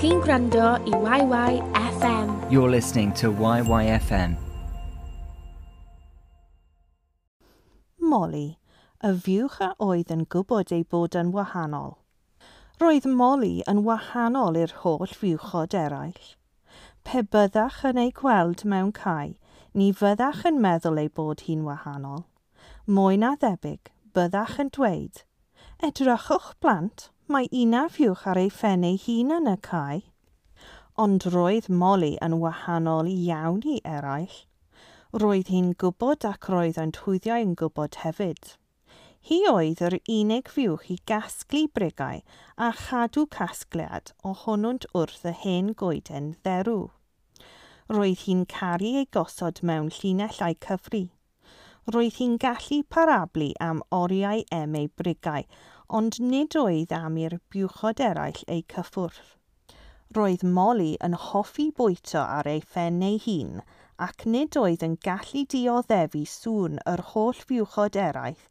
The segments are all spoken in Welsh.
Chi'n gwrando i YYFM. You're listening to YYFM. Molly, y fuwch a oedd yn gwybod ei bod yn wahanol. Roedd Molly yn wahanol i'r holl fuwchod eraill. Pe byddach yn ei gweld mewn cae, ni fyddach yn meddwl ei bod hi'n wahanol. Mwy na thebyg, byddach yn dweud, Edrychwch blant, mae una fuwch ar ei phen ei hun yn y cae. Ond roedd Molly yn wahanol iawn i eraill. Roedd hi'n gwybod ac roedd yn twyddiau yn gwybod hefyd. Hi oedd yr unig fuwch i gasglu brigau a chadw casgliad ohonwnt wrth y hen goeden dderw. Roedd hi'n caru ei gosod mewn llinell a'i cyfri. Roedd hi'n gallu parablu am oriau em ei brigau, ond nid oedd am i'r buwchod eraill eu cyffwrdd. Roedd Molly yn hoffi bwyta ar ei phen ei hun ac nid oedd yn gallu dioddefu sŵn yr holl fuwchod eraill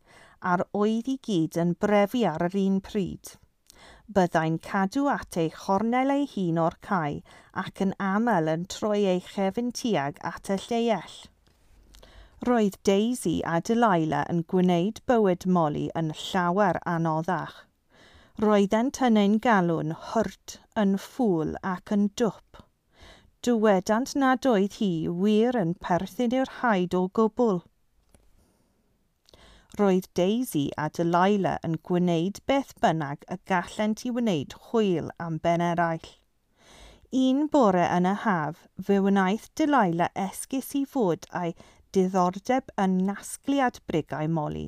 a'r oedd i gyd yn brefu ar yr un pryd. Byddai'n cadw at ei chornel ei hun o'r cae ac yn aml yn troi ei chefn tuag at y lleiell. Roedd Daisy a Delilah yn gwneud bywyd Molly yn llawer anoddach. Roeddent yn ein galw'n hurt, yn ffŵl ac yn dwp. Dywedant nad oedd hi wir yn perthyn i'r haid o gwbl. Roedd Daisy a Delilah yn gwneud beth bynnag y gallent i wneud hwyl am ben eraill. Un bore yn y haf, fe wnaeth Delilah esgus i fod a'i diddordeb yn nasgliad brigau Molly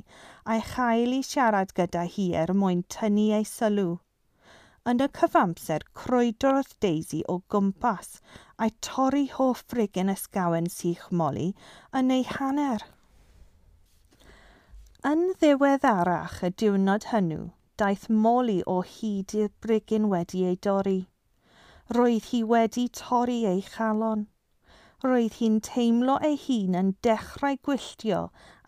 a'i chael i siarad gyda hi er mwyn tynnu ei sylw. Yn y cyfamser, crwydrodd Daisy o gwmpas a'i torri hoff frigyn ysgawen sych Molly yn ei hanner. Yn ddiweddarach y diwrnod hwnnw, daeth Molly o hyd i'r brigyn wedi ei dorri. Roedd hi wedi torri ei chalon. Roedd hi'n teimlo ei hun yn dechrau gwylltio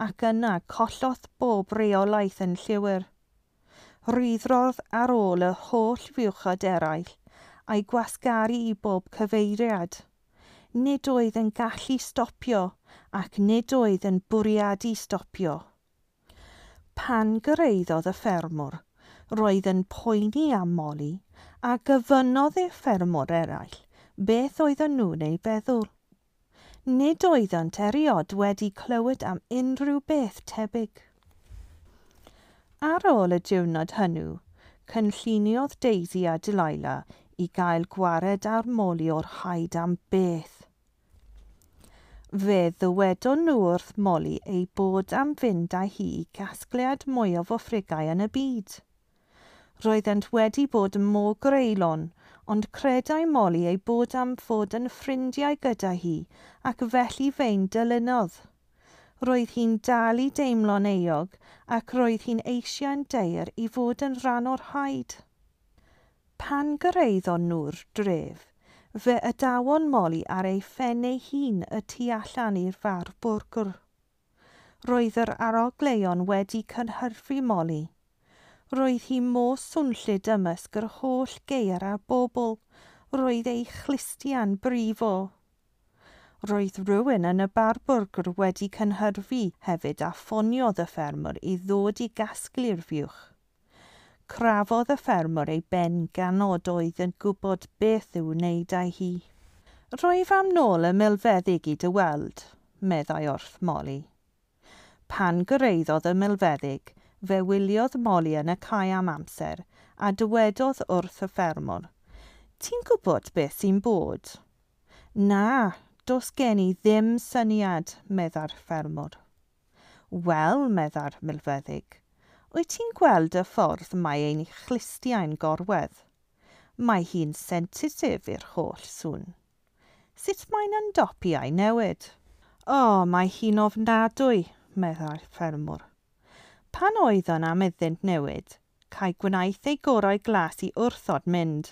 ac yna collodd bob reolaeth yn llwyr. Rhuthrodd ar ôl y holl fuwchod eraill a'i gwasgaru i bob cyfeiriad. Nid oedd yn gallu stopio ac nid oedd yn bwriadu stopio. Pan gyrhaeddodd y ffermwr, roedd yn poeni am Molly a gofynnodd i'r ffermwr eraill beth oedden nhw'n ei feddwl. Nid oeddent erioed wedi clywed am unrhyw beth tebyg. Ar ôl y diwrnod hwnnw, cynlluniodd Daisy a Delilah i gael gwared ar Molly o'r haid am beth. Fe ddywedon nhw wrth Molly ei bod am fynd â hi i gasgliad mwyaf o frigau yn y byd. Roeddent wedi bod mor greulon, ond credai Molly ei bod am fod yn ffrindiau gyda hi ac felly fe'n dilynodd. Roedd hi'n dal i deimlo'n euog ac roedd hi'n eisiau'n daer i fod yn rhan o'r haid. Pan gyrhaeddon nhw'r dref, fe adawon Molly ar ei phen ei hun y tu allan i'r far bwrgwr. Roedd yr arogleuon wedi cynhyrfu Molly. Roedd hi mor swnllyd ymysg yr holl geir a bobl. Roedd ei chlustiau'n brifo. Roedd rhywun yn y bar bwrgwr wedi cynhyrfu hefyd a ffoniodd y ffermwr i ddod i gasglu'r fuwch. Crafodd y ffermwr ei ben gan nad oedd yn gwybod beth i'w wneud â hi. Rwyf am nôl y milfeddyg i dy weld, meddai wrth Molly. Pan gyrhaeddodd y milfeddyg, fe wyliodd Molly yn y cae am amser a dywedodd wrth y ffermwr, Ti'n gwybod beth sy'n bod? Na, does gen i ddim syniad, meddai'r ffermwr. Wel, meddai'r milfeddyg, wyt ti'n gweld y ffordd mae ein chlustiau'n gorwedd? Mae hi'n sensitif i'r holl sŵn. Sut mae'n ymdopi a'i newid? O, mae hi'n ofnadwy, meddai'r ffermwr. Pan oedd yn am iddynt newid, cae gwnaeth ei gorau glas i wrthod mynd.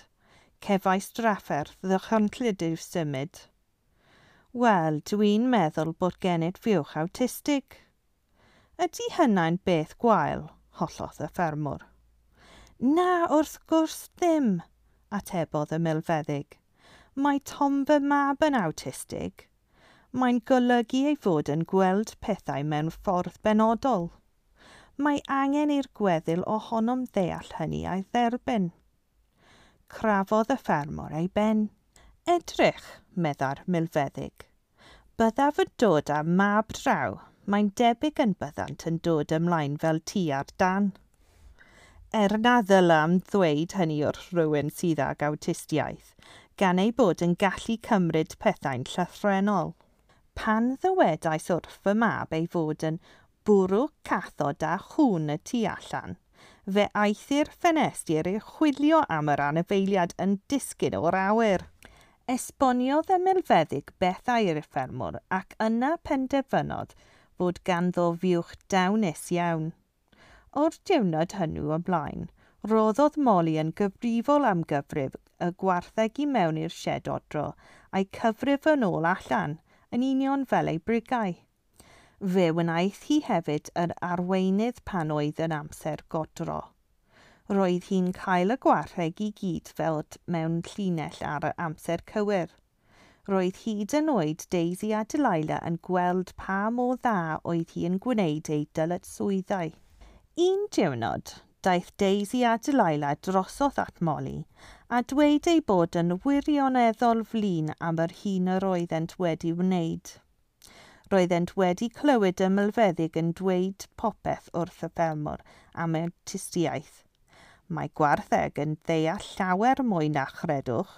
Cefais drafferth ddychrynllyd i'w symud. Wel, dwi'n meddwl bod gennyt fuwch awtistig. Ydy hynna'n beth gwael? Hollodd y ffermwr. Na, wrth gwrs ddim, atebodd y milfeddyg. Mae Tom fy mab yn awtistig. Mae'n golygu ei fod yn gweld pethau mewn ffordd benodol. Mae angen i'r gweddil ohonom ddeall hynny a'i dderbyn. Crafodd y ffermwr ei ben. Edrych, meddai'r milfeddyg. Byddaf yn dod â mab draw. Mae'n debyg yn byddant yn dod ymlaen fel ti ar dan. Er na ddylam ddweud hynny wrth rhywun sydd ag awtistiaeth, gan ei bod yn gallu cymryd pethau'n llythrennol. Pan ddywedais wrth fy mab ei fod yn bwrw cathod a chŵn y tu allan, fe aeth i'r ffenestr i chwilio am yr anifeiliad yn disgyn o'r awyr. Esboniodd y milfeddyg bethau i'r ffermwr ac yna penderfynodd fod ganddo fuwch dawnus iawn. O'r diwrnod hwnnw ymlaen, roddodd Molly yn gyfrifol am gyfrif y gwartheg i mewn i'r sied odro a'i cyfrif yn ôl allan, yn union fel ei brigau. Fe wnaeth hi hefyd yr arweinydd pan oedd yn amser godro. Roedd hi'n cael y gwartheg i gyd fel mewn llinell ar y amser cywir. Roedd hyd yn oed Daisy a Delilah yn gweld pa mor dda oedd hi yn gwneud ei dyletswyddau. Un diwrnod, daeth Daisy a Delilah drosodd at Molly a dweud ei bod yn wirioneddol flin am yr hyn yr oeddent wedi wneud. Roeddent wedi clywed y milfeddyg yn dweud popeth wrth y ffermwr am awtistiaeth. Mae gwartheg yn ddeall llawer mwy na chredwch.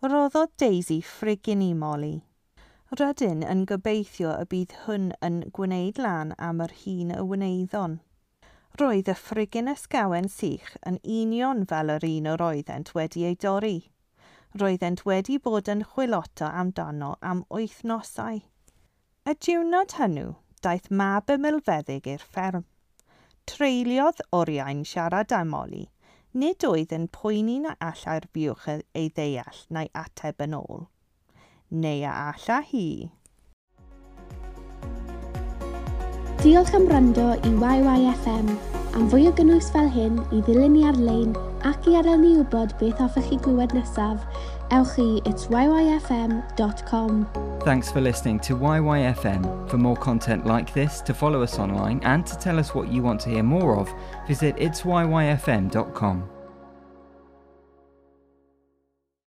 Roddodd Daisy ffrigyn i Molly. Rydyn yn gobeithio y bydd hwn yn gwneud lan am yr hun y wnaethon. Roedd y ffrigyn ysgawen sych yn union fel yr un yr oeddent wedi ei dorri. Roeddent wedi bod yn chwilota amdano am wythnosau. Y diwrnod hwnnw, daeth mab y milfeddyg i'r fferm. Treuliodd oriau'n siarad â Molly. Nid oedd yn poeni na allai'r fuwch ei ddeall na'i ateb yn ôl. Neu a alla hi. Diolch am wrando i YYFM. Am fwy o gynnwys fel hyn, i ddilyn ni ar-lein ac i adael ni wybod beth hoffech chi glywed nesaf, ewch i itsyfm.com. Thanks for listening to YYFM. For more content like this, to follow us online and to tell us what you want to hear more of, visit itsyyfm.com.